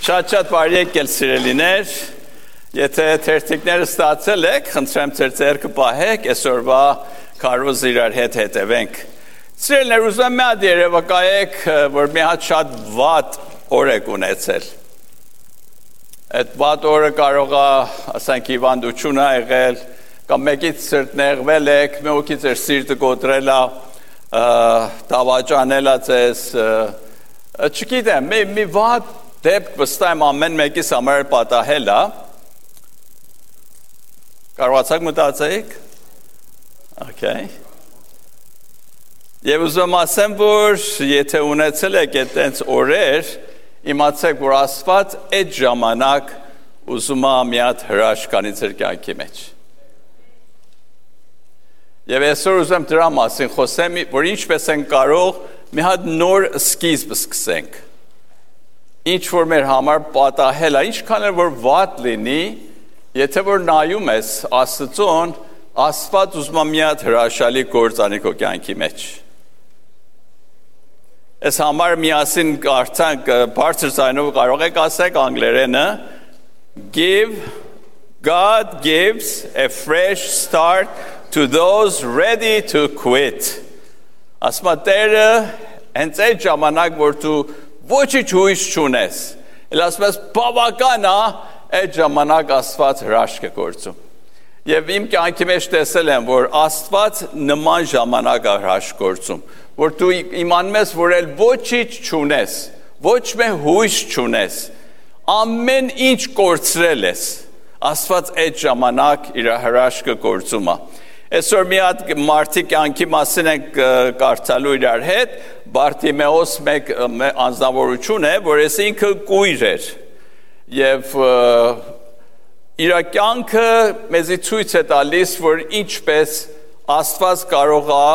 Շատ բարի եկել սիրելիներ, եթե թերթիկները ստացել եք, խնդրեմ ձեր ձեռքը պահեք, այսօրվա քարոզ իրար հետ հետևենք։ Սիրելիներ, ուզում եմ մի հատ երևակայեք, որ մի հատ շատ վատ օր եք ունեցել։ Այդ վատ օրը կարող է, ասենք, հիվանդություն ա եղել, կամ մեկից սրտնեղվել եք, մեկի ձեր սիրտը կոտրել ա, դավաճանել ա ձեզ, չգիտեմ, մի վատ դեպք վստահ եմ ամեն մեկիս համար պատահել է։ Կարողացաք մտածեիք։ Okay։ Եվ ուզում ասեմ, որ եթե ունեցել եք այդպես օրեր, իմացեք, որ Աստված այդ ժամանակ ուզում է մի հատ հրաշք անի ձեր կյանքի մեջ։ Եվ այսօր ուզում դրա մասին խոսեմ, որ ինչպես են կարող մի հատ նոր սկիզբ սկսենք։ Ինչ որ մեր համար պատահել է, ինչքան էլ որ վատ լինի, եթե որ նայում ես Աստծուն, Աստված ուզում է մի հատ հրաշալի գործ անի քո կյանքի մեջ։ Այս համար միասին կարծանք բարձր ձայնով կարող եք ասեք անգլերենը, God gives a fresh start to those ready to quit։ Ասում է Տերը հենց այդ ժամանակ, որ դու ոչինչ հույս չունես, էլ ասում ես բավական է, այդ ժամանակ Աստված հրաշք է գործում։ Եվ իմ կյանքի մեջ տեսել եմ, որ Աստված նման ժամանակ է հրաշք գործում, որ դու իմանում ես, որ էլ ոչինչ չունես, ոչ մի հույս չունես, ամեն ինչ կորցրել ես, Աստված այդ ժամանակ իր հրաշքը գործում է։ Այսօր մի հատ մարդի կյանքի մասին ենք կարդալու իրար հետ, Բարտիմեոս մեկ անձնավորություն է, որ ես ինքը կույր էր, և իր կյանքը մեզի ցույց է տալիս, որ ինչպես Աստված կարող է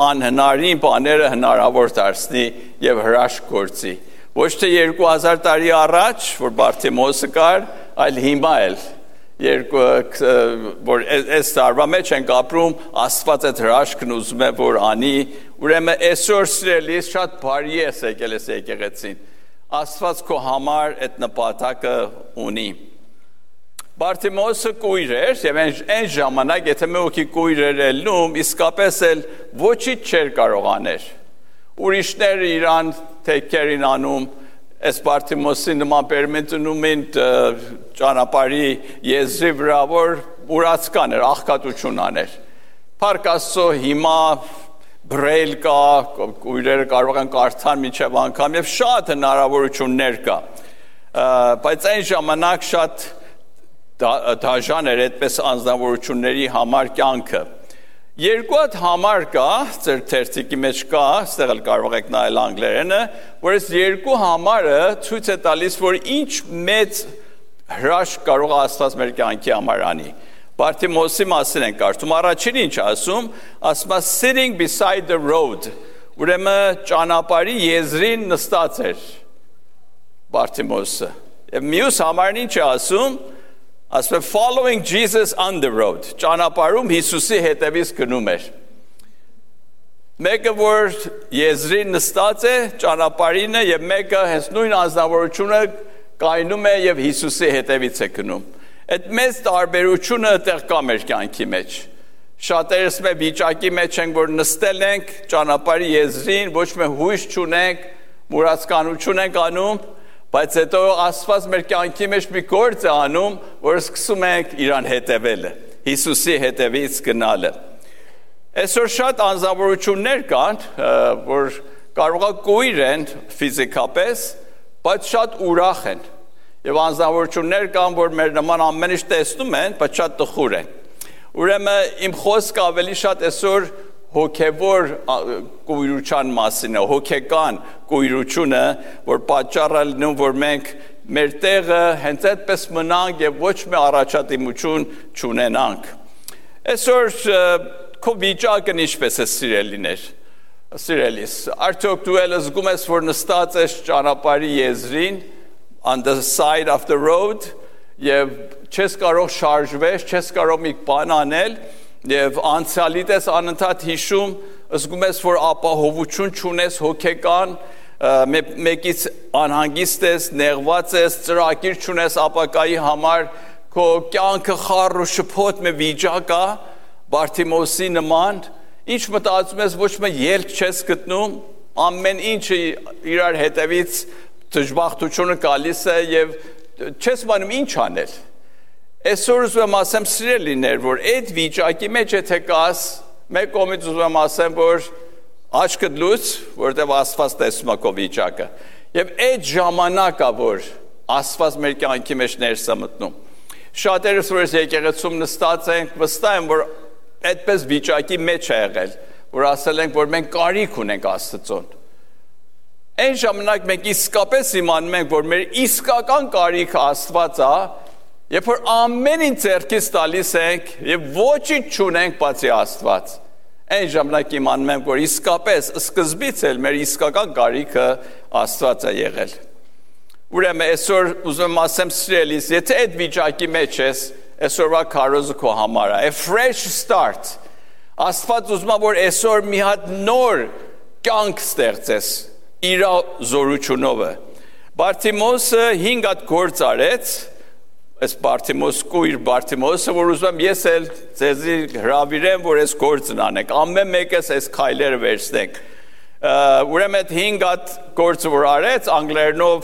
անհնարին բաները հնարավոր դարձնի և հրաշք գործի։ Ոչ թե 2000 տարի առաջ, որ Բարտիմեոսը կար, այլ հիմա էլ, որ այս տարվա մեջ ենք ապրում, Աստված այդ հրաշքն ուզում է, որ անի, ուրեմն այսօր սիրելիս շատ բարի ես եկել ես եկեղեցին, Աստված քո համար այդ նպատակը ունի։ Բարտիմեոսը կույր էր, և այն ժամանակ, եթե մեկի կույր էր ելնում, իսկապես էլ ոչինչ չէր կարող աներ։ Ուրիշները իրան թեքերին անում, այս Բարտիմեոսի նման պերմենտնում են ճանապարհի եզրի վրա, որ ուրացկան էր, աղքատություն աներ։ Փառք Աստծո, հիմա բրեյլ կա, կույրերը կարող են կարդալ մինչև անգամ և շատ հնարավորություններ կա։ Բայց այն ժամանակ շատ դաժան էր այդպես անձնավորությունների համար կյանքը։ Երկու հատ համար կա, ձեր թերթիկի մեջ կա, ստեղ էլ կարող եք նայել անգլերենը, որ այս երկու համարը ցույց է տալիս, որ ինչ մեծ հրաշք կարող է Աստված մեր կյանքի համար անի։ Բարտիմեոսի մասին են կարդում, առաջին ինչ ասում է sitting beside the road, ուրեմն ճանապարհի եզրին նստած էր Բարտիմեոսը։ Եվ մյուս համարն ինչ է ասում following Jesus on the road, ճանապարհում Հիսուսի հետևից գնում էր։ Մեկը որ եզրին նստած է, ճանապարհին է, եւ մեկը հենց նույն անձնավորությունը կայնում է եւ Հիսուսի հետևից է գնում։ Այդ մեծ տարբերությունը այդտեղ կա մեր կյանքի մեջ։ Շատերս մեր վիճակի մեջ ենք, որ նստել ենք ճանապարհի եզրին, ոչ մի հույս չունենք, մուրացկանություն ենք անում, բայց հետո Աստված մեր կյանքի մեջ մի գործ է անում, որ սկսում ենք իրան հետևելը, Հիսուսի հետևից գնալը։ Այսօր շատ անձնավորություններ կան, որ կարող է կույր են ֆիզիկապես, բայց շատ ուրախ են։ Եվ անձնավորություններ կան, որ մեր նման ամեն ինչ տեսնում են, բայց շատ տխուր են։ Ուրեմն իմ խոսքը ավելի շատ այսօր հոգևոր կույրության մասին է, հոգեկան կույրությունը, որ պատճառը լինում, որ մենք մեր տեղը հենց այդպես մնանք և ոչ մի առաջադիմություն չունենանք։ Այսօր քո վիճակն ինչպես է սիրելիս, արդյոք դու էլ զգում ես, որ նստած ես ճանապարհի եզրին, on the side of the road, և չես կարող շարժվել, չես կարող մի բան անել, և անցյալիդ ես անընդհատ հիշում, զգում ես, որ ապահովություն չունես հոգեկան, մեկից անհանգիստ ես, նեղված ես, ծրագիր չունես ապագայի համար, քո կյանքը խառ ու շփոթ մի վիճակ է, Բարթիմոսի նման, ինչ մտածում ես, ոչ մի ելք չես գտնում, ամեն ինչը իրար հետևից դժբախտությունը գալիս է եւ չես բանում ինչ անել։ Այսօր ուզում եմ ասեմ սիրելիներ, որ այդ վիճակի մեջ եթե կաս, մեկ կողմից ուզում եմ ասեմ, որ աչքդ լուծ, որտեղ Աստված տեսնում է քո վիճակը։ Եվ այդ ժամանակը, որ Աստված մեր կյանքի մեջ ներս է մտնում։ Շատերս որ եկեղեցում նստած ենք, վստահ եմ, որ այդպես վիճակի մեջ է եղել, որ ասել ենք, որ մենք կարիք ունենք Աստծուն։ Այն ժամանակ մենք իսկապես իմանում ենք, որ մեր իսկական կարիքը Աստված է, երբ որ ամեն ինչ ձեռքից տալիս ենք եւ ոչինչ չունենք բացի Աստված։ Այն ժամանակ իմանում ենք, որ իսկապես սկզբից էլ մեր իսկական կարիքը Աստված է եղել։ Ուրեմն այսօր ուզում եմ ասեմ սիրելիս, եթե այդ վիճակի մեջ ես, այսօրվա քարոզը քո համար է, a fresh start։ Աստված ուզում է, որ այսօր մի հատ նոր կյանք ստեղծես իր զորությունով։ Բարթիմոսը 5 հատ գործ արեց, այս Բարթիմոս կույր Բարթիմոսը, որ ուզում եմ ես էլ ձեզի հրավիրեմ, որ այս գործն անեք, ամեն մեկս այս քայլերը վերցնենք։ Ուրեմն այդ 5 հատ գործը որ արեց, անգլերենով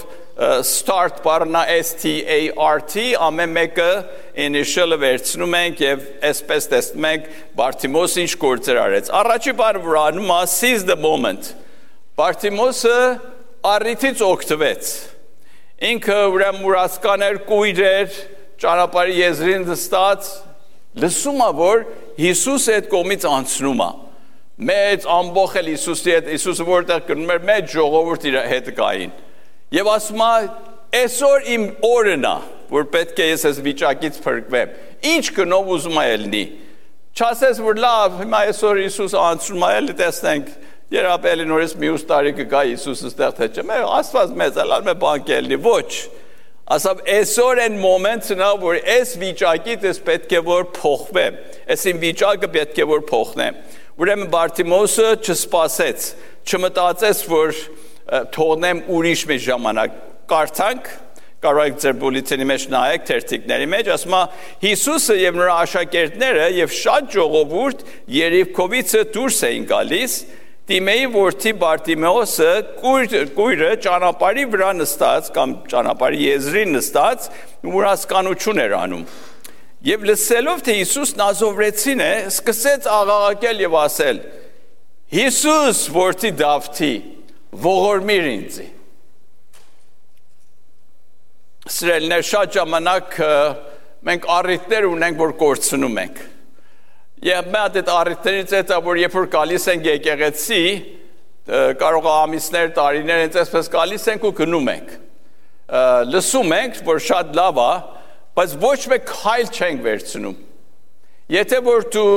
start բառնա S-T-A-R-T, ամեն մեկը initial-ը վերցնում ենք եւ այսպես տեսնում ենք Բարթիմոսը ինչ գործեր արեց։ Առաջի բանը որ անում է seize the moment։ Բարթիմոսը առիթից օգտվեց։ Ինքը ուրեմն մուրացկաներ, կույր էր, ճանապարհի եզրին նստած, լսում է, որ Հիսուսը այդ կողմից անցնում է։ Մեծ ամբողջ էլ Հիսուսի հետ, Հիսուսը որտեղ գնում էր, մեծ ժողովուրդ իր հետ կային։ Եվ ասում է, այսօր իմ օրն է, որ պետք է ես այս վիճակից փրկվեմ։ Ինչ գնով ուզում է ելնի։ Չասես, որ լավ, հիմա այսօր Հիսուսը անցնում է, էլի տեսնենք, երբ էլի նորից մյուս տարի կգա Հիսուսը ստեղ թե չէ, մեր Աստված մեծ է, լավ մի բան կելնի, ոչ։ Ասավ, այսօր այն մոմենտն է, որ այս վիճակից ես պետք է որ փոխվեմ, այս իմ վիճակը պետք է որ փոխնեմ։ Ուրեմն Բարթիմոսը չսպասեց, չմտածեց, որ թողնեմ ուրիշ մի ժամանակ, կարդանք, կարող եք ձեր բուլետինի մեջ նայեք, թերթիկների մեջ, ասում է Հիսուսը եւ նրա աշակերտները եւ շատ ժողովուրդ Երիքովից դուրս էին գալիս, Տիմեի որդի Բարթիմեոսը կույրը ճանապարհի վրա նստած կամ ճանապարհի եզրին նստած մուրացկանություն էր անում։ Եվ լսելով թե Հիսուս Նազովրեցին է, սկսեց աղաղակել եւ ասել. Հիսուս որդի Դավթի, ողորմիր ինձ։ Սիրելիներ, շատ ժամանակ մենք առիթներ ունենք, որ կորցնում ենք։ Եվ մենք այդ առիթներից հետո, որ երբ որ գալիս ենք եկեղեցի, կարող է ամիսներ, տարիներ այնպես գալիս ենք ու գնում ենք։ Լսում ենք, որ շատ լավ է, բայց ոչ մեկ քայլ չենք վերցնում։ Եթե որ դու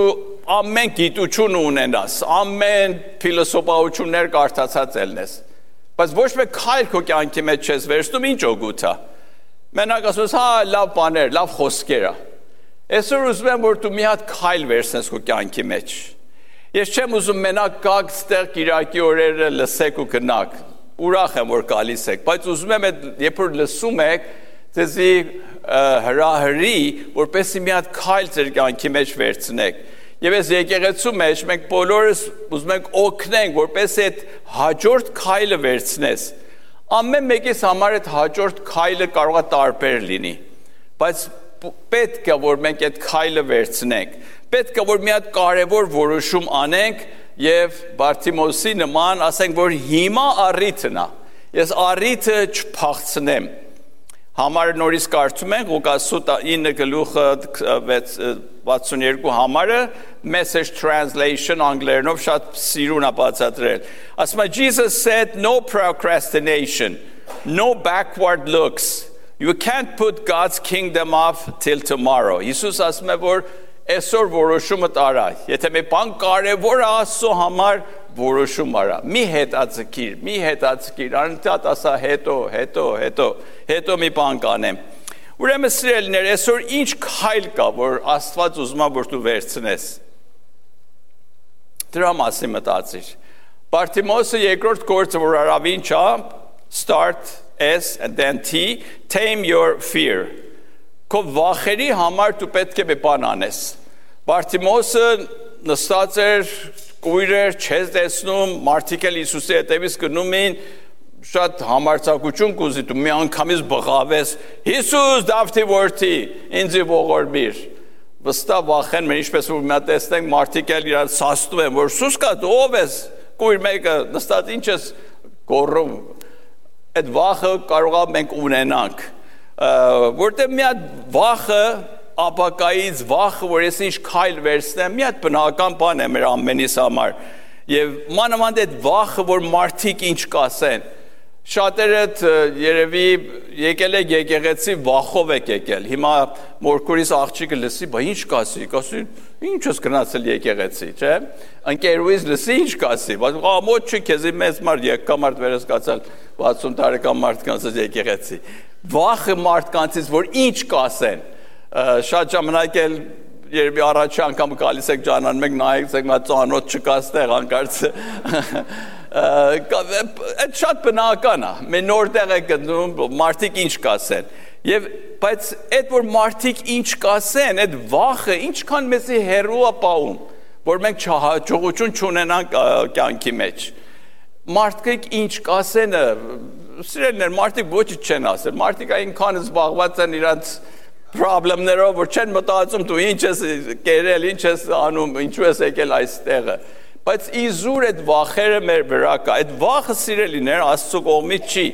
ամեն գիտություն ունենաս, ամեն փիլիսոփայություններ կարդացած ելնես, բայց ոչ մեկ քայլ քո կյանքի մեջ չես վերցնում, ինչ օգուտ է։ Մենակ ասում ես, հա, լավ բաներ, լավ խոսքեր է։ Այսօր ուզում եմ, որ դու մի հատ քայլ վերցնես քո կյանքի մեջ։ Ես չեմ ուզում մենակ գաք ստեղ Կիրակի օրերը լսեք ու գնաք։ Ուրախ եմ, որ գալիս եք, բայց ուզում եմ, երբ որ լսում եք, ձեզի հրահրի, որպեսզի մի հատ քայլ ձեր կյանքի մեջ վերցնեք։ Եվ այս եկեղեցու մեջ մենք բոլորս ուզում ենք օգնենք, որպեսզի այդ հաջորդ քայլը վերցնես։ Ամեն մեկիս համար այդ հաջորդ քայլը կարող է տարբեր լինի, բայց պետք է որ մենք այդ քայլը վերցնենք, պետք է որ մի հատ կարևոր որոշում անենք եւ Բարթիմոսի նման ասենք, որ հիմա առիթն է, ես առիթը չփախցնեմ։ Համարը նորից կարդում ենք Ղուկաս 9:62 համարը, Message translation անգլերենով շատ սիրուն է բացատրել։ Ասում է Jesus said no procrastination, no backward looks. You can't put God's kingdom off till tomorrow. Հիսուս ասում է, որ այսօր որոշումը տարա։ Եթե մի բան կարևոր է Աստծո համար, որոշում արա։ Մի հետաձգիր, անընդհատ ասա հետո մի բան կանեմ։ Ուրեմն սիրելիներ, այսօր ինչ քայլ կա, որ Աստված ուզում է, որ դու վերցնես։ Դրա մասին մտածիր։ Բարթիմոսը երկրորդ գործը, որ արավին չա, start S and then T, tame your fear. Քո վախերի համար դու պետք է մի բան անես։ Բարթիմոսը նստած էր, կույր էր, չես տեսնում, մարդիկ էլ Հիսուսի հետևից գնում էին, շատ համարձակություն կուզի, դու մի անգամից բղավես, Հիսուս Դավթի որդի, ինձի ողորմիր։ Վստահ վախեն մեր ինչպես որ մի հատ տեսնենք, մարդիկ էլ իրար սաստում են, որ Սուս կա, դու ով ես, կույր մեկը, նստած ինչ ես գոռում։ Այդ վախը կարող է մենք ունենանք, որտեղ մի հատ վախը ապակայից վախը, որ ես ինչ քայլ վերցնեմ, մի հատ բնական բան է մեր ամենիս համար։ Եվ մանավանդ այդ վախը, որ մարդիկ ինչ կասեն։ Շատերդ երևի եկել եք եկեղեցի վախով եք եկել։ Հիմա մորքուրիս աղջիկը լսի, բա ինչ կասի, կասի, ինչ ես գնացել եկեղեցի, չէ՞։ Ընկերուհիս լսի, ինչ կասի, ամոթ չի քեզի մեծ մարդ եկամարդ վերսկացալ 60 տարեկան մարդկանց եկեղեցի։ Վախը մարդկանցից, որ ինչ կասեն։ Շատ ժամանակ էլ երբի առաջի անգամ գալիս եք ջանան մեկ նայեք եք մա ծանոթ չկաս տեղ անկարծ այդ շատ բնական է մենք նոր տեղ եք գտնում մարդիկ ինչ կասեն եւ բայց այդ որ մարդիկ ինչ կասեն այդ վախը ինչքան մեզի հերու է պահում որ մենք չհաջողություն չունենանք կյանքի մեջ մարդիկ ինչ կասեն սիրելիներ մարդիկ ոչինչ չեն ասել մարդիկ այնքան զբաղված են իրանց problemներով, որ չեն մտածում դու ինչ ես կերել, ինչ ես անում, ինչու ես եկել այստեղը։ Բայց իզուր այդ վախերը մեր վրա կա։ Այդ վախը սիրելիներ Աստծո կողմից չի։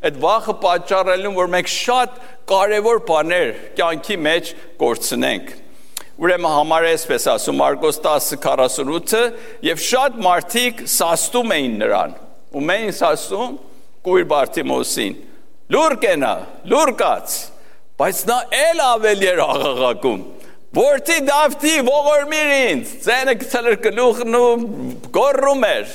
Այդ վախը պատճառելու որ մենք շատ կարևոր բաներ կյանքի մեջ կորցնենք։ Ուրեմն համար է այսպես ասում Մարկոս 10:48-ը եւ շատ մարդիկ սաստում էին նրան։ Ում էին սաստում կույր Բարթիմոսին։ Լուր կենա, լուր կաց։ Բայց նա էլ ավելի էր աղաղակում, որդի Դավթի ողորմիր ինձ, ձենը գցել էր գլուխն ու գոռում էր,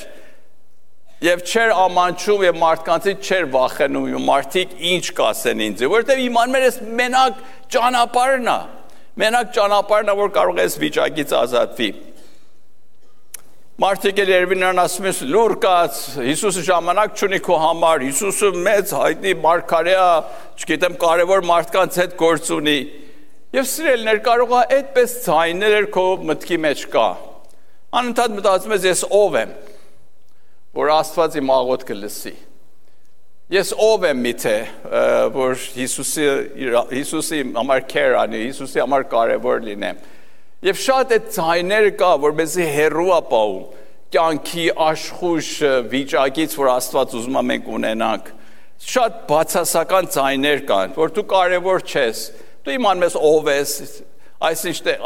եւ չէր ամանչում եւ մարդկանցից չէր վախենում, մարդիկ ինչ կասեն ինձ, որովհետեւ իմանում էր ես մենակ ճանապարհն է, որ կարող է այս վիճակից ազատվի։ Մարդիկ էլ երևի նրան ասում են լուր կաց, Հիսուսը ժամանակ չունի քո համար, Հիսուսը մեծ հայտնի մարգարե է, չգիտեմ կարևոր մարդկանց հետ գործ ունի։ Եվ սիրելիներ կարող է այդպես ձայներ քո մտքի մեջ կա։ Անընդհատ մտածում ես ով եմ, որ Աստված իմ աղոթքը լսի։ Ես ով եմ միթե, որ Հիսուսի համար քեր անի, Հիսուսի համար կարևոր լինեմ։ Եվ շատ այդ ձայները կա, որ մեզի հերու է պահում կյանքի աշխույժ վիճակից, որ Աստված ուզում է մենք ունենանք։ Շատ բացասական ձայներ կան, որ դու կարևոր չես, դու իմանում ես ով ես,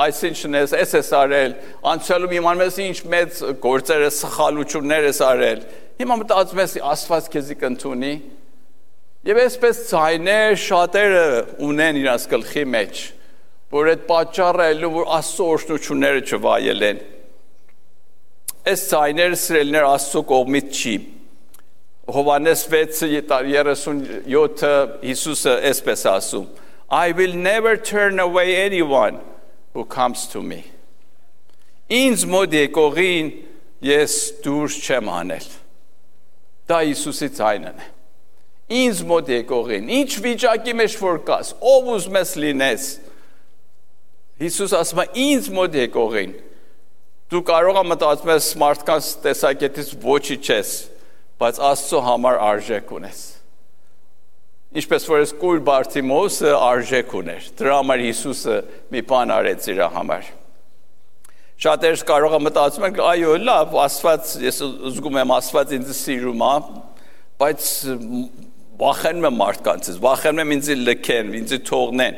այսինչն ես արել, անցյալում իմանում ես ինչ մեծ գործեր ես, սխալություններ ես արել։ Հիմա մտածում ես Աստված քեզի կընդունի։ Եվ այսպես ձայներ շատերը ունեն իրաց գլխի մեջ, որ այդ պատճառը է, որ Աստծո օրհնությունները չվայելեն։ Այս ձայները սիրելիներ Աստծո կողմից չի։ Հովհաննես 6:37 Հիսուսը այսպես ասում. I will never turn away anyone who comes to me. Ինձ մոտ եկողին ես դուրս չեմ անել։ Դա Հիսուսի ձայնն է։ Ինձ մոտ եկողին, ինչ վիճակի մեջ որ կաս, ով ուզում ես լինես, Հիսուս ասում է ինձ մոտ եկողին, դու կարող ես մտածում ես մարդկանց տեսակետից ոչինչ չես, բայց Աստծո համար արժեք ունես։ Ինչպես որ այս կույր Բարթիմոսը արժեք ուներ, դրա համար Հիսուսը մի բան արեց իր համար։ Շատերս կարող են մտածում են, այո, լավ, Աստված, ես զգում եմ Աստված ինձ սիրում է, բայց վախենում եմ մարդկանցից, վախենում եմ ինձ լքեն, ինձ թողնեն։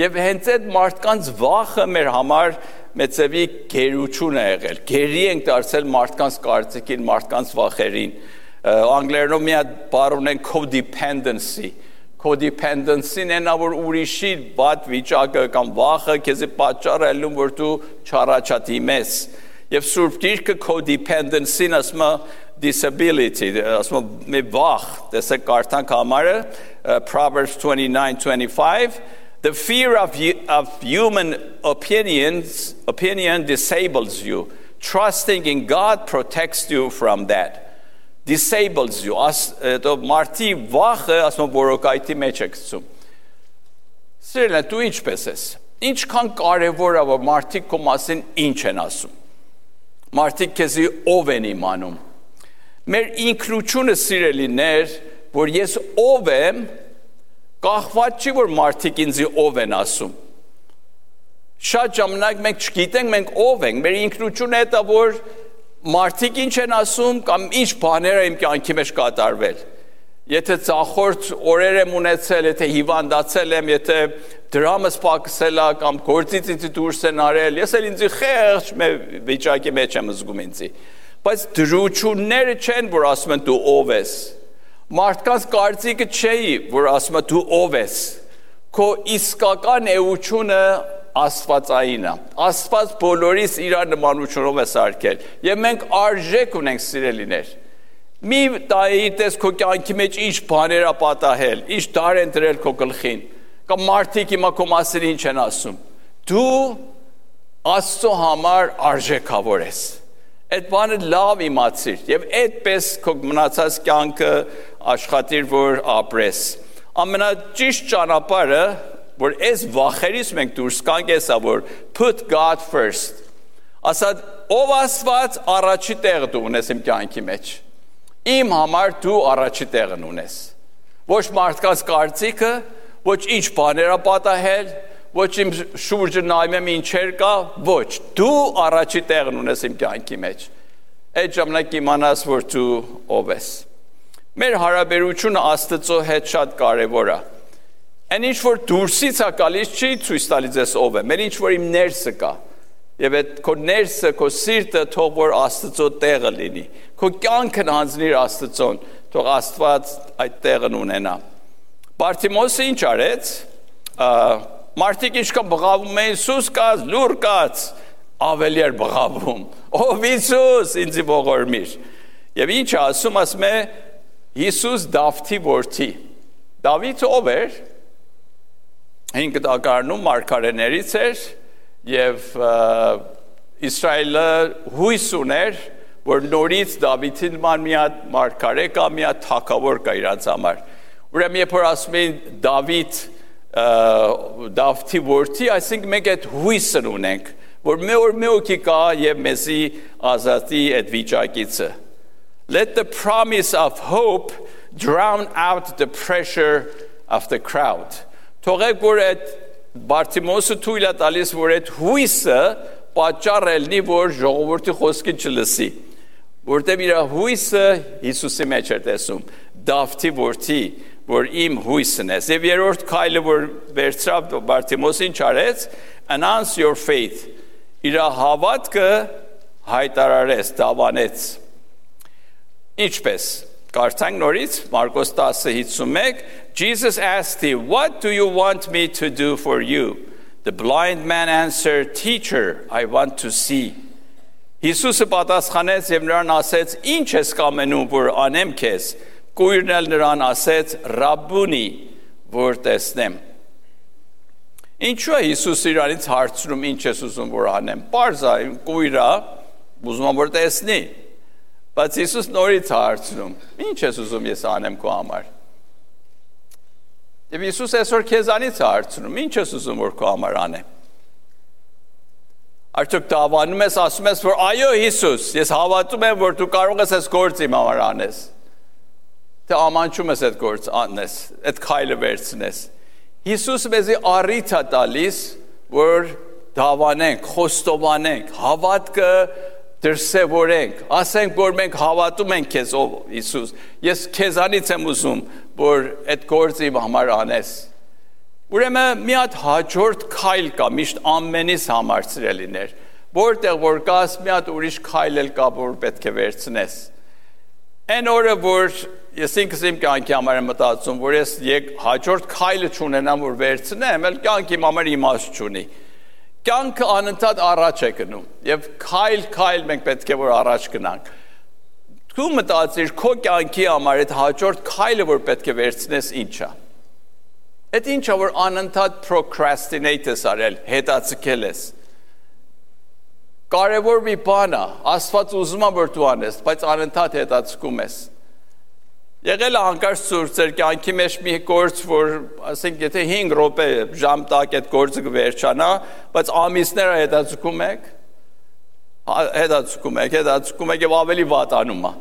Եվ հենց այդ մարդկանց վախը մեր համար մեծևի գերություն է եղել։ Գերի ենք դարձել մարդկանց կարծիքին, մարդկանց վախերին։ Անգլերենով մի հատ բառ ունեն codependency։ Codependency-ն է նա որ ուրիշի վատ վիճակը կամ վախը քեզ պատճառ է ելնում որ դու չառաջադիմես։ Եվ Սուրբ Գիրքը codependency-ն ասում է disability, ասում է մի վախ, տեսեք կարդանք համարը Proverbs 29:25. The fear of human opinion disables you. Trusting in God protects you from that. disables you, το մարդի վախը ասում որոկայթի մեջ է գցում։ Սիրելին, դու ինչպես ես։ Ինչքան կարևոր է որ մարդիկ քո մասին ինչ են ասում։ Մարդիկ քեզի ով են իմանում։ Մեր ինքնությունը սիրելիներ, որ ես ով եմ, կախված չի որ մարդիկ ինձի ով են ասում։ Շատ ժամանակ մենք չգիտենք մենք ով ենք, մեր ինքնությունը է դա որ մարդիկ ինչ են ասում կամ ինչ բաներ են իմ կյանքի մեջ կատարվել։ Եթե ծախորդ օրեր եմ ունեցել, եթե հիվանդացել եմ, եթե դրամս պակսել է կամ գործից ինձ դուրս են արել, ես էլ ինձի խեղճ վիճակի մեջ եմ զգում ինձի։ Բայց դրությունները չեն, որ ասում են դու ով ես։ Մարդկանց կարծիքը չէ, որ ասում է դու ով ես։ Քո իսկական էությունը Աստվածային է։ Աստված բոլորիս իր նմանությունով է սարքել։ Եվ մենք արժեք ունենք սիրելիներ։ Մի տայիտես քո կյանքի մեջ ինչ բաներ է պատահել, ինչ դար են դրել քո գլխին, կամ մարդիկ հիմա քո մասին ինչ են ասում։ Դու Աստծո համար արժեքավոր ես։ Այդ բանը լավ իմացիր եւ այդպես քո մնացած կյանքը աշխատիր որ ապրես։ Ամենաճիշտ ճանապարհը որ այս վախերից մենք դուրս գանք էսա որ put God first։ Ասած ով Աստված առաջի տեղը դու ունես իմ կյանքի մեջ։ Իմ համար դու առաջի տեղն ունես։ Ոչ մարդկանց կարծիքը, ոչ ինչ բաներ է պատահել, ոչ իմ շուրջը նայում եմ ինչեր կա, ոչ, դու առաջի տեղն ունես իմ կյանքի մեջ։ Այդ ժամանակ իմանաս որ դու ով ես։ Մեր հարաբերությունը Աստծո հետ շատ կարևոր է։ Այն ինչ որ դուրսից է գալիս չի ցույց տալիս ես ով է, մեր ինչ որ իմ ներսը կա։ Եվ այդ քո ներսը, քո սիրտը թող որ Աստծո տեղը լինի։ Քո կյանքն հանձնիր Աստծոն, թող Աստված այդ տեղն ունենա։ Բարտիմոսը ինչ արեց։ Մարդիկ ինչքան բղավում էին Հիսուս կաց, լուր կաց, ավելի էր բղավում։ Ով Հիսուս, ինձ ողորմիր։ Եվ ինչ ասում է Հիսուս Դավթի որդի։ Դավիթը ով էր։ 5 դակարանում մարգարեներից էր եւ Իսրայելը հույս ուներ որ նորից Դավիթին նման մի հատ մարգարե կա մի հատ թագավոր կա իրանց համար ուրեմն երբ որ ասում են Դավթի որդի այսինքն մենք այդ հույսն ունենք որ մի օքի կա եւ մեզի ազատի այդ վիճակից Let the promise of hope drown out the pressure of the crowd Թողեք որ այդ Բարտիմոսը թույլ է տալիս որ այդ հույսը պատճառ ելնի որ ժողովրդի խոսքին չլսի որտեղ իր հույսը Հիսուսի մեջ էր տեսում Դավթի որդի որ իմ հույսն է եւ երրորդ քայլը որ վերցրավ Բարտիմոսին չարեց announce your faith իր հավատքը հայտարարեց դավանեց ինչպես Կարդանք նորից Մարկոս 10:51 Jesus asked him, "What do you want me to do for you?" The blind man answered, "Teacher, I want to see." Հիսուսը պատասխանեց եւ նրան ասեց, «Ինչ ես կամենում որ անեմ քեզ»։ Կույրն էլ նրան ասեց, «Ռաբբունի, որ տեսնեմ»։ Ինչու է Հիսուս իրանից հարցնում, ինչ ես ուզում որ անեմ։ Պարզ է, կույրը ուզում որ տեսնի։ Բայց Հիսուս նորից հարցնում, ինչ ես ուզում ես անեմ քո համար։ Եվ Հիսուս այսօր քեզանից հարցնում, ինչ ես ուզում որ քո համար անեմ։ Արդյոք դավանում ես, ասում ես, որ այո Հիսուս, ես հավատում եմ, որ դու կարող ես այս գործը իմ համար անես։ Թե ամանչում ես այդ գործը անես, այդ քայլը վերցնես։ Հիսուսը մեզի առիթ է տալիս, որ դավանենք, խոստովանենք, հավատքը դրսևորենք, ասենք որ մենք հավատում ենք քեզ ով Հիսուս։ Ես քեզանից եմ ուզում, որ այդ գործը իմ համար անես։ Ուրեմն մի հատ հաջորդ քայլ կա միշտ ամենից համար սիրելիներ, որտեղ որ կաս մի հատ ուրիշ քայլ էլ կա, որ պետք է վերցնես։ Այն օրը որ ես ինքս իմ կյանքի համար եմ մտածում, որ ես հաջորդ քայլը չունենամ որ վերցնեմ, էլ կյանքի իմ համար իմաստ չունի։ Կյանքը անընդհատ առաջ է գնում եւ քայլ մենք պետք է որ առաջ գնանք։ Դու մտածիր քո կյանքի համար այդ հաջորդ քայլը որ պետք է վերցնես ինչ է։ Այդ ինչա որ անընդհատ procrastinate ես արել, հետաձգել ես։ Կարևոր մի բան է, Աստված ուզում է որ դու անես, բայց անընդհատ հետաձգում ես։ Եղել է հանկարծ ցույց ձեր կյանքի մեջ մի գործ, որ ասենք եթե 5 րոպե ժամ տակ այդ գործը կվերջանա, բայց ամիսները հետաձգում եք, հետաձգում եք եւ ավելի վատանում է։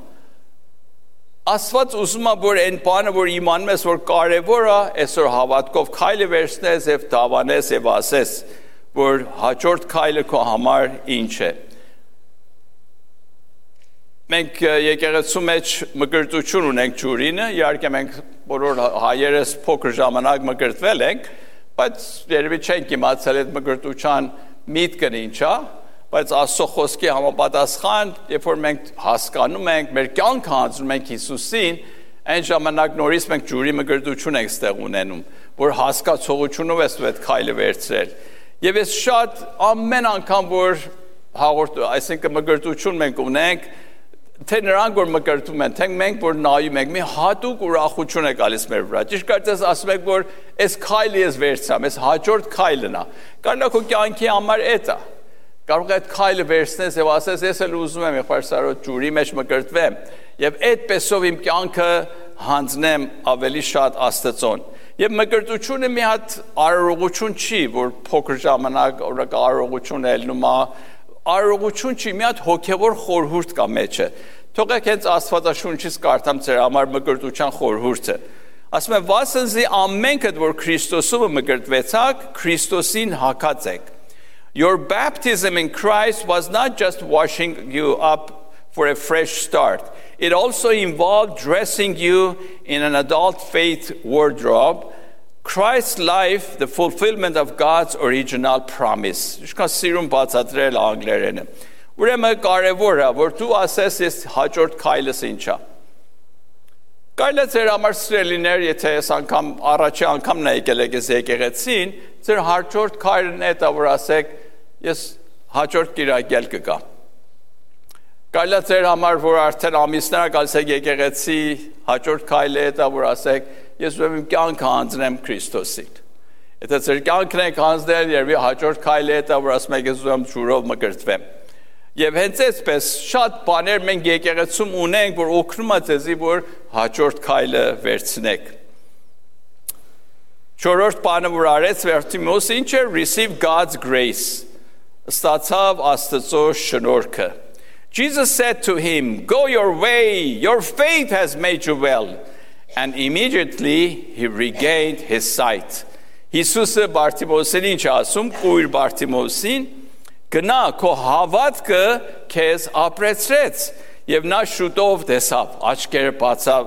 Աստված ուզում է, որ այն բանը, որ իմանում ես, որ կարևոր է, այսօր հավատքով քայլը վերցնես եւ դավանես եւ ասես, որ հաջորդ քայլը քո համար ինչ է։ Մենք եկեղեցու մեջ մկրտություն ունենք ջուրինը, իհարկե մենք բոլոր հայերս փոքր ժամանակ մկրտվել ենք, բայց երևի չենք իմացել այդ մկրտության միտքն ինչ է, բայց Աստծո խոսքի համապատասխան, երբ որ մենք հասկանում ենք, մեր կյանքը հանձնում ենք Հիսուսին, այն ժամանակ նորից մենք ջուրի մկրտություն ենք ստեղ ունենում, որ հասկացողությունով ես այդ քայլը վերցրել։ Եվ ես շատ ամեն անգամ որ այսինքն մկրտություն մենք ունենք, թե նրանք որ մկրտում են, թե մենք որ նայում ենք, մի հատուկ ուրախություն է գալիս մեր վրա։ Ճիշտ կարծես ասում եք, որ այս քայլը ես վերցրամ, այս հաջորդ քայլն է։ Կարողա քո կյանքի համար էդ է։ Կարող է այդ քայլը վերցնես եւ ասես, ես էլ ուզում եմ եղբայր Սարոտ ջուրի մեջ մկրտվեմ եւ այդպեսով իմ կյանքը հանձնեմ ավելի շատ Աստծուն։ Եվ մկրտությունը մի հատ արարողություն չի, որ փոքր ժամանակ արարողություն ելնում է, արարողություն չի, մի հատ հոգևոր խորհուրդ կա մեջը։ Թողեք հենց Աստվածաշունչից կարդամ ձեր համար մկրտության խորհուրդը։ Ասում է, վասնզի ամենքդ, որ Քրիստոսով մկրտվեցաք, Քրիստոսին հագած եք։ Your baptism in Christ was not just washing you up for a fresh start. It also involved dressing you in an adult faith wardrobe, Christ's life, the fulfillment of God's original promise. Ishkan sirun բացատրել անգլերենը։ Ուրեմն կարևոր է, որ դու ասես ես հաջորդ քայլս ինչա։ Կարելի է ձեր համար սիրելիներ, եթե ես անգամ առաջի անգամն եկել եք ես եկեղեցին, ձեր հաջորդ քայլն է դա որ ասեք ես հաջորդ կիրակել կգամ։ Կարելի է ձեր համար որ արդեն ամիսներ գալիս եք եկեղեցի, հաջորդ քայլը է դա որ ասեք ես ուզում եմ կյանքը հանձնեմ Քրիստոսին։ Եթե ձեր կյանքն եք հանձնել, երբ հաջորդ քայլը է դա որ ասում եք ես ուզում եմ ջուրով մկրտվեմ։ Եվ հենց այսպես շատ բաներ մենք եկեղեցում ունենք, որ օգնում է ձեզի, որ հաջորդ քայլը վերցնեք։ Չորրորդ բանը որ արեց Վերտիմոս ինչ է receive God's grace։ Ստացավ Աստծո շնորհքը։ Jesus said to him, go your way, your faith has made you well. And immediately he regained his sight. Հիսուսը Բարտիմոսին ինչ ասում, կույր Բարտիմոսին, գնա քո հավատքը քեզ ապրեցրեց եւ նա շուտով տեսավ, աչքերը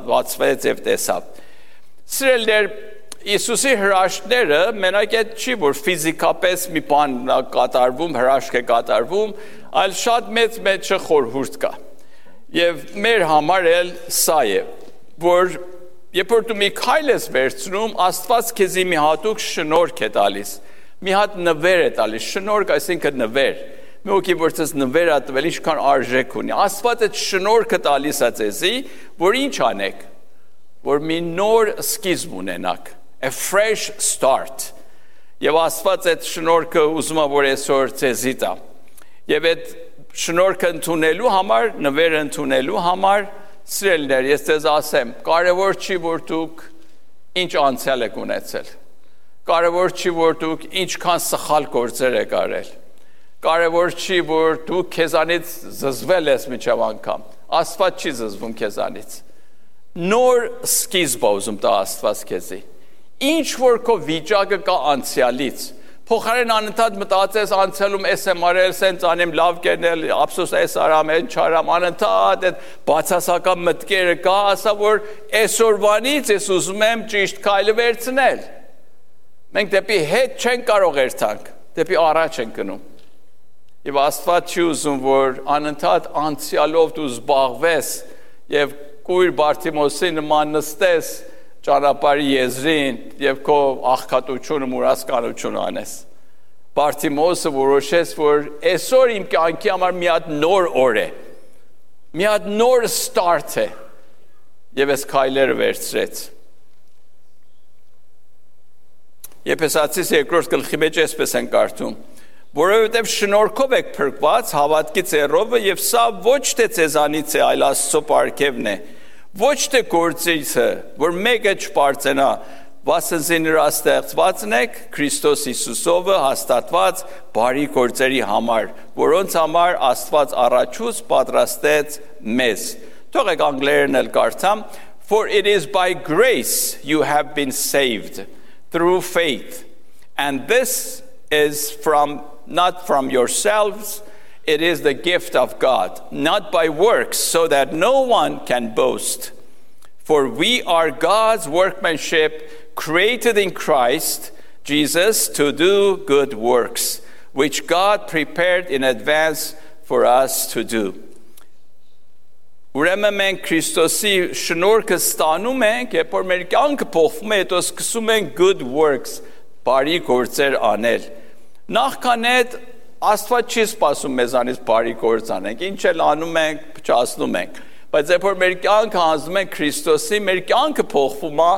բացվեց եւ տեսավ։ Սիրելիներ, Հիսուսի հրաշքները մենակ այդ չի, որ ֆիզիկապես մի բան կատարվում, հրաշք է կատարվում, այլ շատ մեծ խորհուրդ կա։ Եվ մեր համար էլ սա է, որ երբ որ դու մի քայլ ես վերցնում, Աստված քեզի մի հատուկ շնորհք է տալիս, մի հատ նվեր է տալիս, շնորհք այսինքն նվեր։ Մի օքի որ ցես նվեր է տվել, ինչքան արժեք ունի։ Աստված այդ շնորհքը տալիս է ձեզի, որ ինչ անեք, որ մի նոր սկիզբ ունենաք, a fresh start։ Եվ Աստված այդ շնորհքը ուզում է որ այսօր ձեզի տա։ Եվ այդ շնորհքը ընդունելու համար, նվերը ընդունելու համար սիրելիներ, ես ձեզ ասեմ, կարևոր չի որ դուք ինչ անցյալ եք ունեցել։ Կարևոր չի որ դուք ինչքան սխալ գործեր եք արել։ Կարևոր չի որ դուք քեզանից զզվել ես միջև անգամ։ Աստված չի զզվում քեզանից։ Նոր սկիզբ ուզում տա Աստված քեզի։ Ինչ որ քո վիճակը կա անցյալից, փոխարեն անընդհատ մտածես անցյալում էս եմ արել, սենց անեմ, լավ կերնել, ափսոս էս արամ, այն չարամ, անընդհատ այդ բացասական մտքերը կա, ասա որ այսօրվանից ես ուզում եմ ճիշտ քայլը վերցնել։ Մենք դեպի հետ չենք կարող երթանք, դեպի առաջ ենք գնում։ Եվ Աստված չի ուզում որ անընդհատ անցյալով դու զբաղվես եւ կույր Բարտիմոսի նման նստես ճանապարհի եզրին եւ քո աղքատությունը մուրասկանությունը անես։ Բարտիմոսը որոշեց, որ այսօր իմ կյանքի համար մի հատ նոր օր է, մի հատ նոր start է եւ այս քայլերը վերցրեց։ Եփեսացիս 2-րդ գլխի մեջ այսպես են կարդում. որովհետև շնորհքով եք փրկված հավատքի ծեռովը եւ սա ոչ թե ձեզանից է, այլ Աստծո պարգևն է, Ոչ թե գործիցը, որ մեկը չպարծենա, վասնզի նրա ստեղծվածն եք Քրիստոս Հիսուսով հաստատված բարի գործերի համար, որոնց համար Աստված առաջուց պատրաստեց մեզ։ Թողեք անգլերեն էլ կարդամ. For it is by grace you have been saved through faith, and this is not from yourselves, it is the gift of God, not by works, so that no one can boast. For we are God's workmanship, created in Christ Jesus to do good works, which God prepared in advance for us to do. Ուրեմն մենք Քրիստոսի շնորհքը ստանում ենք, երբ որ մեր կյանքը փոխվում է, հետո սկսում ենք good works, բարի գործեր անել։ Նախքան այդ Աստված չի սպասում մեզանից բարի գործ անենք, ինչ էլ անում ենք, փչացնում ենք։ Բայց երբ որ մեր կյանքը հանձնում ենք Քրիստոսի, մեր կյանքը փոխվում է,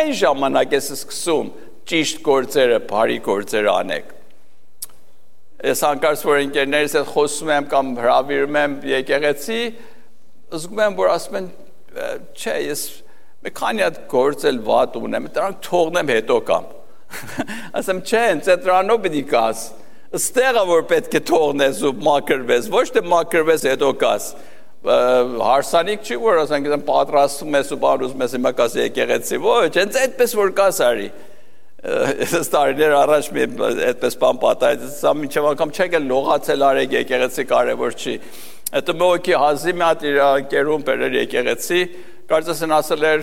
այն ժամանակ է սկսում ճիշտ գործերը, բարի գործեր անենք։ Ես անկարծ որ ընկերներիս հետ խոսում եմ կամ հրավիրում եմ եկեղեցի, զգում եմ, որ ասում են, չէ, ես մի քանի հատ գործ էլ վատ ունեմ, դրանք թողնեմ հետո կամ։ Ասեմ, չէ, ինձ դրանով պիտի կաս։ Ստեղը որ պետք է թողնես ու մաքրվես, ոչ թե մաքրվես հետո կաս։ Հարսանիք չի, որ ասենք պատրաստում ես ու բան ուզում ես հիմա կաս եկեղեցի, ոչ, հենց այդպես որ կաս արի։ Ես տարիներ առաջ մի այդպես բան պատահեց, սա մինչև անգամ չեք էլ լողացել արեք եկեղեցի կարևոր չի։ Հետո մոքի հազի մի հատ իր ընկերուն բերել եկեղեցի, կարծես են ասել էր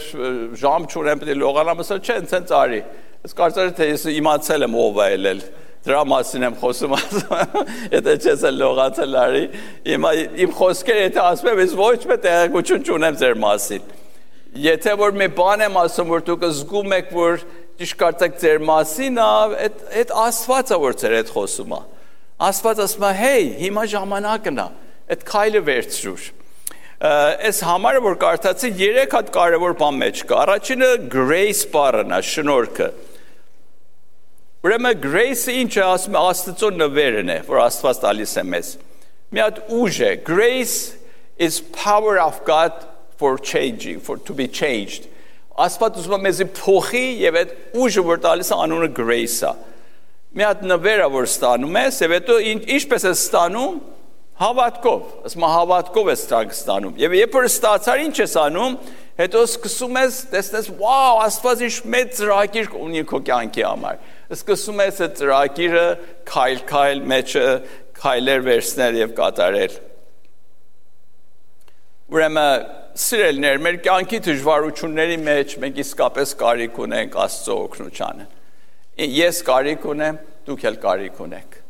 ժամ չունեմ պետք է լողանամ, ասել չէ, ինձ արի։ Ես կարծես թե ես իմացել եմ ով է ելել։ Դրա մասին եմ խոսում, եթե չես էլ լողացել արի։ Իմ խոսքերը եթե ասում եմ, ես ոչ մի տեղեկություն չունեմ ձեր մասին։ Եթե որ մի բան եմ ասում, որ դուք զգում եք, որ ճիշտ կարծեք ձեր մասին, այդ Աստվածը որ ձեր հետ խոսում է։ Աստված ասում է, հեյ, հիմա ժամանակն է։ Այդ քայլը վերցրուր։ Այս համարը որ կարդացի 3 հատ կարևոր բան մեջ կա։ Առաջինը grace բառն է, շնորհքը։ Ուրեմն grace-ը ինչ է, ասում է Աստծո նվերն է, որ Աստված տալիս է մեզ։ Մի հատ ուժ է։ Grace is power of God for changing, to be changed։ Աստված ուզում է մեզի փոխի եւ այդ ուժը որ տալիս է անունը grace-ը։ Մի հատ նվեր է որ ստանում ես, եւ հետո ինչպես է ստանում Հավատքով, ասում հավատքով ես ստանում։ Եվ երբ որ ստացար ինչ ես անում, հետո սկսում ես տեսնես, վաու, Աստված ինչ մեծ ծրագիր ունի քո կյանքի համար։ Սկսում ես այդ ծրագիրը քայլ մեջը քայլեր վերցնել եւ կատարել։ Ուրեմն սիրելիներ, մեր կյանքի դժվարությունների մեջ մենք իսկապես կարիք ունենք Աստծո օգնությանը։ Ես կարիք ունեմ, դուք էլ կարիք ունեք։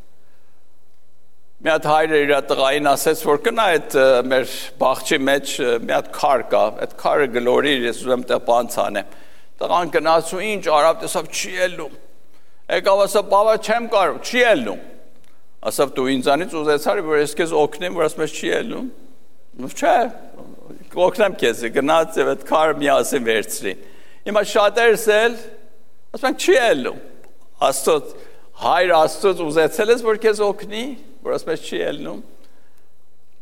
Մի հատ հայրը իր տղային ասեց, որ կնա այդ մեր բաղջի մեջ մի հատ քար կա, այդ քարը գլորի, ես ուզում տեղ բանց անեմ։ Տղան գնաց ու ինչ արավ, տեսավ չի ելնում։ Եկավ ասավ, բաբա չեմ կարող, չի ելնում։ Ասավ դու ինձանից ուզեցար, որ ես քեզ օգնեմ, որ ասում ես չի ելնում։ Չէ, օգնեմ քեզ, գնաց եւ այդ քարը միասին վերցրին։ Հիմա շատերս էլ ասում են չի ելնում։ Աստծո հայր Աստծոց ուզեցել ես, որ քեզ օգնի, որ ասում ես չի ելնում։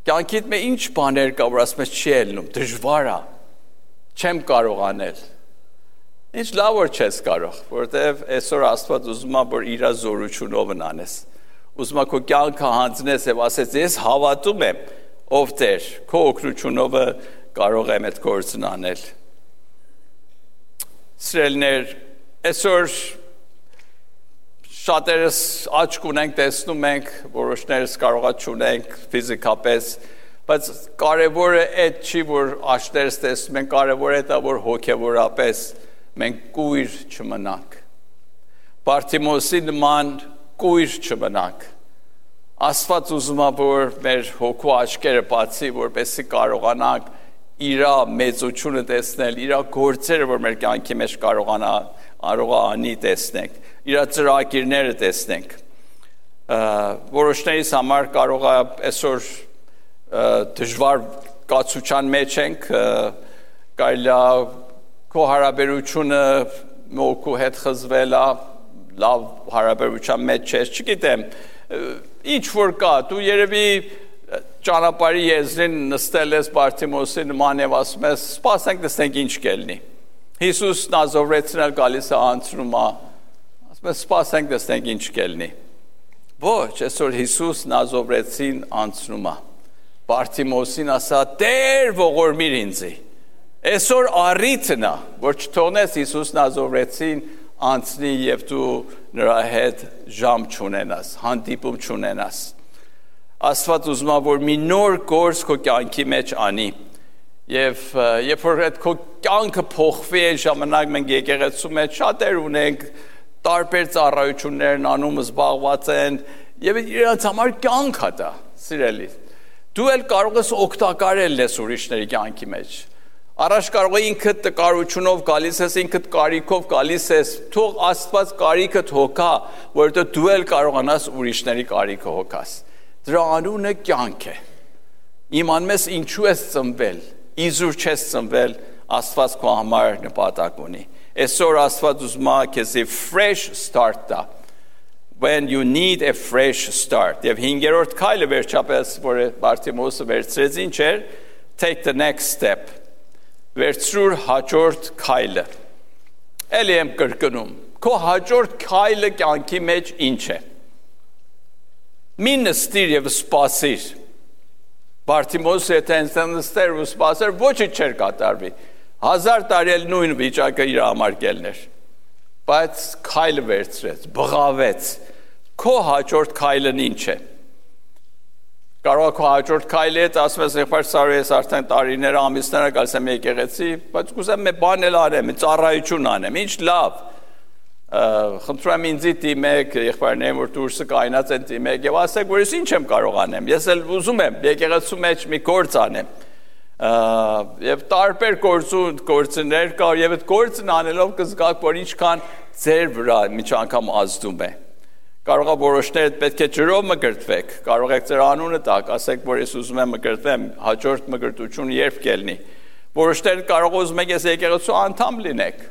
Կյանքիդ մեջ ինչ բաներ կա, որ ասում ես չի ելնում, դժվար է, չեմ կարող անել։ Ինչ լավ որ չես կարող, որովհետև այսօր Աստված ուզում է, որ իր զորությունով անես։ Ուզում է քո կյանքը հանձնես եւ ասես, ես հավատում եմ, ով Տեր, քո օգնությունով կարող եմ այդ գործն անել։ Սիրելիներ, այսօր շատերս աչք ունենք, տեսնում ենք, որոշներս կարողա չունենք ֆիզիկապես, բայց կարևորը այդ չի, որ աչքերս տեսնում ենք, կարևորը դա, որ հոգևորապես մենք կույր չմնանք։ Բարտիմոսի նման կույր չմնանք։ Աստված ուզում է, որ մեր հոգու աչքերը բացի, որպեսզի կարողանանք իր մեծությունը տեսնել, իր գործերը, որ մեր կյանքի մեջ կարողանա անի տեսնենք, իր ծրագիրները տեսնենք։ Որոշներիս համար կարող է այսօր դժվար կացության մեջ ենք, կարելի է քո հարաբերությունը մոքու հետ խզվել է, լավ հարաբերության մեջ չես, չգիտեմ, ինչ որ կա, դու երևի ճանապարհի եզրին նստել ես Բարթիմոսի նման եւ ասում ես սպասենք տեսնենք ինչ կելնի Հիսուս Նազովրեցին էլ գալիս է անցնում է ասում ես սպասենք տեսնենք ինչ կելնի ոչ այսօր Հիսուս Նազովրեցին անցնում է Բարթիմոսին ասա Տեր ողորմիր ինձի այսօր առիթն է որ չթողնես Հիսուս Նազովրեցին անցնի եւ դու նրա հետ ժամ չունենաս հանդիպում չունենաս Աստված ուզում է որ մի նոր գործ քո կյանքի մեջ անի եւ երբ որ այդ քո կյանքը փոխվի այն ժամանակ մենք եկեղեցու մեջ շատեր ունենք տարբեր ծառայություններ անում զբաղված են եւ իրենց համար կյանք է դա սիրելի դու էլ կարող ես օգտակարել ես ուրիշների կյանքի մեջ Առաջ կարող է ինքդ տկարությունով գալիս ես, ինքդ կարիքով գալիս ես, թող Աստված կարիքդ հոգա, որովհետեւ դու էլ կարողանաս ուրիշների կարիքը հոգաս։ Դրա անունը կյանք է։ Իմանում ես ինչու ես ծնվել, իզուր չես ծնվել, Աստված քո համար նպատակ ունի։ Այսօր Աստված ուզում է քեզի fresh start տա։ When you need a fresh start։ Եվ 5-րդ քայլը վերջապես, որ Բարթիմոսը վերցրեց ինչ էր, take the next step։ Վերցրուր հաջորդ քայլը։ Էլի եմ կրկնում։ Քո հաջորդ քայլը կյանքի մեջ ինչ է։ Մի նստիր եւ սպասիր։ Բարթիմոսը եթե նստեր ու սպասեր, ոչինչ չէր կատարվի։ 1000 տարի էլ նույն վիճակը իր համար կելներ։ Բայց քայլը վերցրեց, բղավեց։ Քո հաջորդ քայլն ինչ է։ Կարող է քո հաջորդ քայլը հետ ասում ես եղբայր Սարոյ ես արդեն տարիներ ամիսներ գալիս եմ եկեղեցի, բայց կուզեմ մի բան էլ անեմ, մի ծառայություն անեմ, ինչ լավ։ Խնդրում եմ ինձ դիմեք, եղբայրներն որ դուրսը կայնած են դիմեք եւ ասեք որ ես ինչ եմ կարող անեմ։ Ես էլ ուզում եմ եկեղեցու մեջ մի գործ անեմ։ Եվ տարբեր գործներ կա եւ այդ գործն անելով կզգաք որ ինչքան ձեր վրա մի անգամ ազդում է։ Կարող է որոշներ պետք է ջրով մկրտվեք, կարող եք ձեր անունը տակ, ասեք, որ ես ուզում եմ մկրտվեմ, հաջորդ մկրտությունը երբ կելնի։ Որոշներ կարող ուզում եք ես եկեղեցու անդամ լինեք,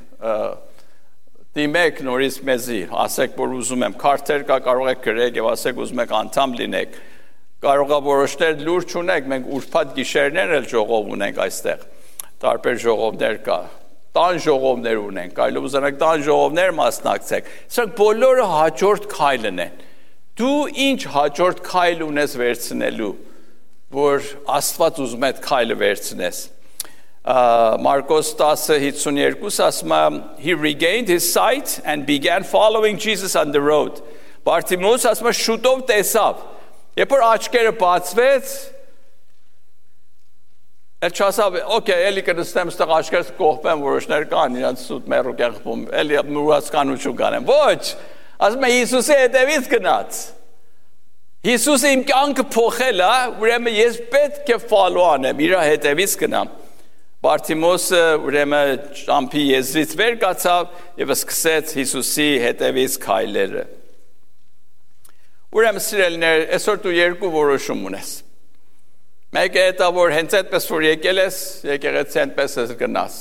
դիմեք նորից մեզի, ասեք, որ ուզում եմ, քարտեր կա, կարող եք գրեք եւ ասեք ուզում եք անդամ լինեք։ Կարող է որոշներ լուր չունեք, մենք ուրբաթ գիշերներ էլ ժողով ունենք այստեղ, տարբեր ժողովներ կա։ Տան ժողովներ ունենք, կարելի ուզենակ տան ժողովներ մասնակցեք։ Սրանք բոլորը հաջորդ քայլն են։ Դու ինչ հաջորդ քայլ ունես վերցնելու, որ Աստված ուզում է այդ քայլը վերցնես։ Մարկոս 10:52 ասում է he regained his sight and began following Jesus on the road։ Բարթիմոս ասում է շուտով տեսավ։ Երբ որ աչքերը բացվեց, Էլ չասավ, օքեյ, էլի կնստեմ ստեղ աչքերս կողպեմ, որոշներ կան, իրանց սուտ մերուկ եղբում, էլի մուրացկանություն կանեմ, ոչ, ասում է Հիսուսի հետևից գնաց, Հիսուսը իմ կյանքը փոխել է, ուրեմն ես պետք է follow անեմ, իր հետևից գնամ, Բարթիմոսը ուրեմն ճամփի եզրից վեր կացավ եւ սկսեց Հիսուսի հետևից քայլերը, ուրեմն սիրելիներ, այսօր դու երկու որոշում ունես, Մեկը հետա որ հենց այդպես որ եկել ես, եկեղեցի այնպես ես գնաս,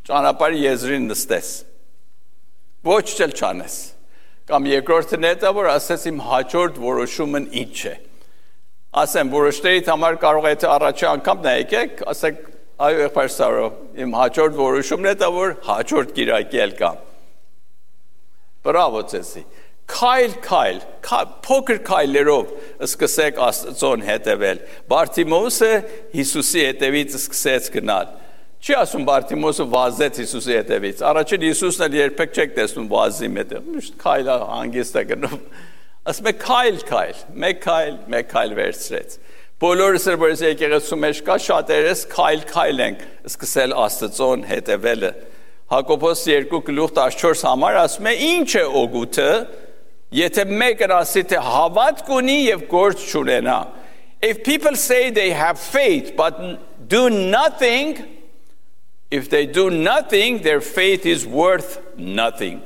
ճանապարհի եզրին նստես, ոչ չել չանես, կամ երկրորդն հետա որ ասես իմ հաջորդ որոշումն ինչ է, ասեմ որոշներիդ համար կարող է թե առաջի անգամ նա եկեք, ասեք այո եղբայր Սարո, իմ հաջորդ որոշումն հետա որ հաջորդ կիրակի էլ կամ, բրավո ձեզի, Քայլ, փոքր քայլերով սկսեք Աստծուն հետևել։ Բարթիմոսը Հիսուսի հետևից սկսեց գնալ։ Չի ասում Բարթիմոսը վազեց Հիսուսի հետևից։ Առաջին Հիսուսն էլ երբեք չեք տեսնում վազի մետը։ Միշտ քայլը հանգիստ է գնում։ Ասում է քայլ, մեկ քայլ վերցրեց։ Բոլորս որ եկեղեցու մեջ կա շատերս քայլ ենք սկսել Աստծուն հետևելը։ Հակոբոս 2:14 համար ասում է ինչ է օգուտը Եթե մեկն ասի թե հավատք ունի եւ գործ չունենա If people say they have faith but do nothing if they do nothing their faith is worth nothing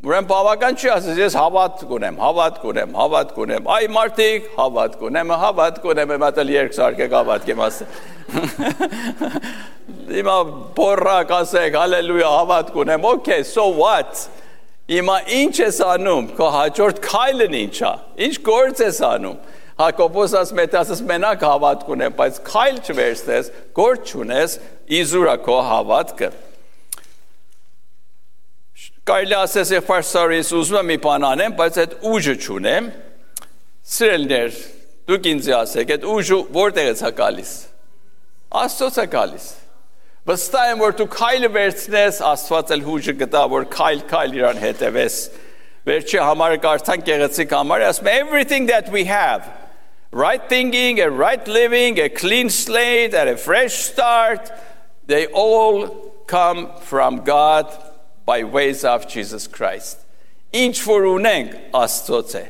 Ուրեմն բավական չի ասես ես հավատք ունեմ այ մարդիկ հավատք ունեմ մատալ երկսարկեք հավատք եմ ասել Հիմա բորրակ ասեք հալելույա հավատք ունեմ okay so what Հիմա ինչ ես անում, քո հաջորդ քայլն ինչա, ինչ գործ ես անում, Հակոբոս ասմետասս մենակ հավատք ունեմ, բայց քայլ չվերցնես, գործ չունես, իզուրա քո հավատքը։ Կարելի ասես եղբայր Սարոյից ուզում եմ մի բան անեմ, բայց այդ ուժը չունեմ։ Սիրելիներ, դուք ինձ ասեք, այդ ուժը որտեղից է գալիս։ Աստծոց է գալիս։ Վստահ եմ, որ դու քայլը վերցնես, Աստված էլ ուժը կտա, որ քայլ իրան հետևես։ Վերջի համարը կարդանք գեղեցիկ համարը, ասում է everything that we have, right thinking, a right living, a clean slate, and a fresh start, they all come from God by ways of Jesus Christ. Ինչ որ ունենք Աստծոց է։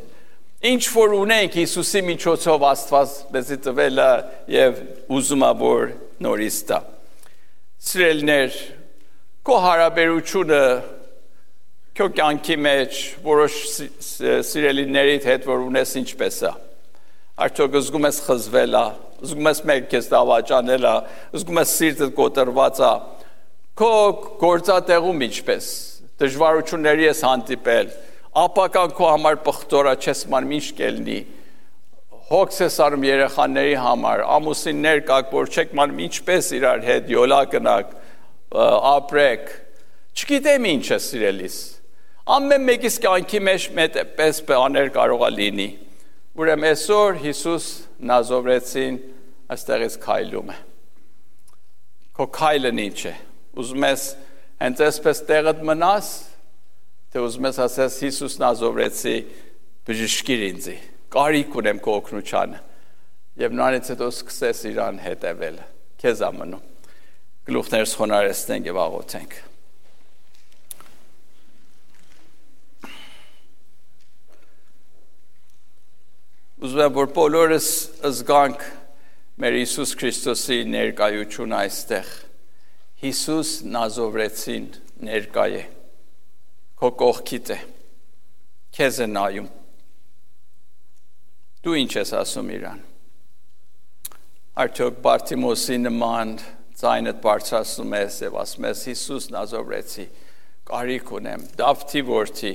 Ինչ որ ունենք Հիսուսի միջոցով Աստված մեզ տվել է եւ ուզում է որ նորից տա։ Սիրելիներ, քո հարաբերությունը քո կյանքի մեջ որոշ սիրելիներիդ հետ որ ունես ինչպես է։ Արդյոք զգում ես խզվել է, զգում ես մեկ քեզ դավաճանել է, զգում ես սիրտդ կոտրված է։ Քո գործատեղում ինչպես դժվարությունների ես հանդիպել, ապական քո համար պղտորա չես ման ինչ կելնի, հոգս ես արում երեխաների համար, ամուսիններ կաք, որ չեք ման ինչպես իրար հետ յոլա կնակ, ապրեք, չգիտեմ ինչ է սիրելիս, ամեն մեկիս կյանքի մեջ պես բաներ կարող է լինի, ուրեմն այսօր Հիսուս Նազովրեցին այստեղից քայլում է, քո քայլն ինչ է, ուզում ես հենց այսպես տեղդ մնաս, թե ուզում ես ասես Հիսուս Նազովրեցի բժշկիր ինձի, կարիք ունեմ քո օգնությանը, և նրանից հետո սկսես իրան հետևել, քեզ ամնում, գլուխներս խոնարհեցնենք և աղոթենք։ Ուզում եմ, որ բոլորս զգանք մեր Հիսուս Քրիստոսի ներկայությունը այստեղ, Հիսուս Նազովրեցին ներկայ է, քո կողքիդ է, քեզ է նայում, դու ինչ ես ասում իրան, արդյոք Բարտիմոսի նման ձայնդ բարձրացնում ես և ասում ես Հիսուս Նազովրեցի, կարիք ունեմ, Դավթի որդի,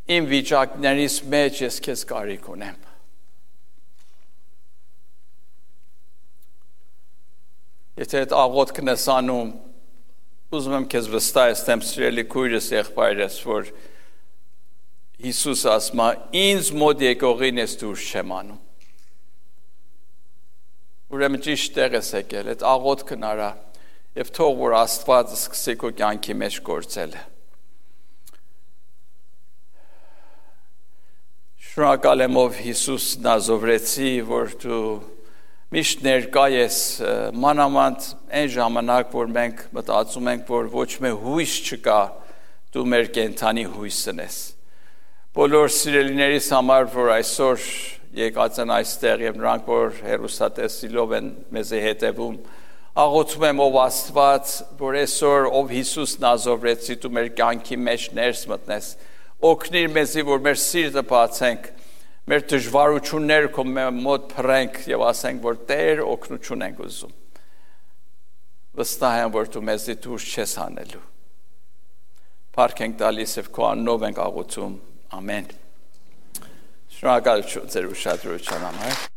իմ վիճակներից մեջ ես քեզ կարիք ունեմ։ Եթե այդ աղոթքն ես անում, ուզում եմ քեզ վստահեցնեմ սիրելի քույրս եղբայրս, որ Հիսուս ասում է, ինձ մոտ եկողին ես դուրս չեմ անում։ Ուրեմն ճիշտ տեղ ես եկել, այդ աղոթքն արա, և թող որ Աստված սկսի քո կյանքի մեջ գործել։ Շնորհակալ եմ ով Հիսուս Նազովրեցի, որ դու միշտ ներկա ես մանավանդ այն ժամանակ, որ մենք մտածում ենք, որ ոչ մի հույս չկա, դու մեր կենդանի հույսն ես։ Բոլոր սիրելիներիս համար, որ այսօր եկած են այստեղ և նրանք, որ հեռուստատեսիլով են մեզի հետևում, աղոթում եմ ով Աստված, որ այսօր ով Հիսուս Նազովրեցի դու մեր կյանքի մեջ ներս մտնես, օգնիր մեզի, որ մեր սիրտը բացենք, մեր դժվարությունները քո մոտ փռենք և ասենք, որ Տեր օգնություն ենք ուզում։ Վստահ եմ, որ դու մեզի դուրս չես հանելու։ Փառք ենք տալիս և քո անունով ենք աղոթում։ Ամեն։ Շնորհակալություն ձեր ուշադրության համար։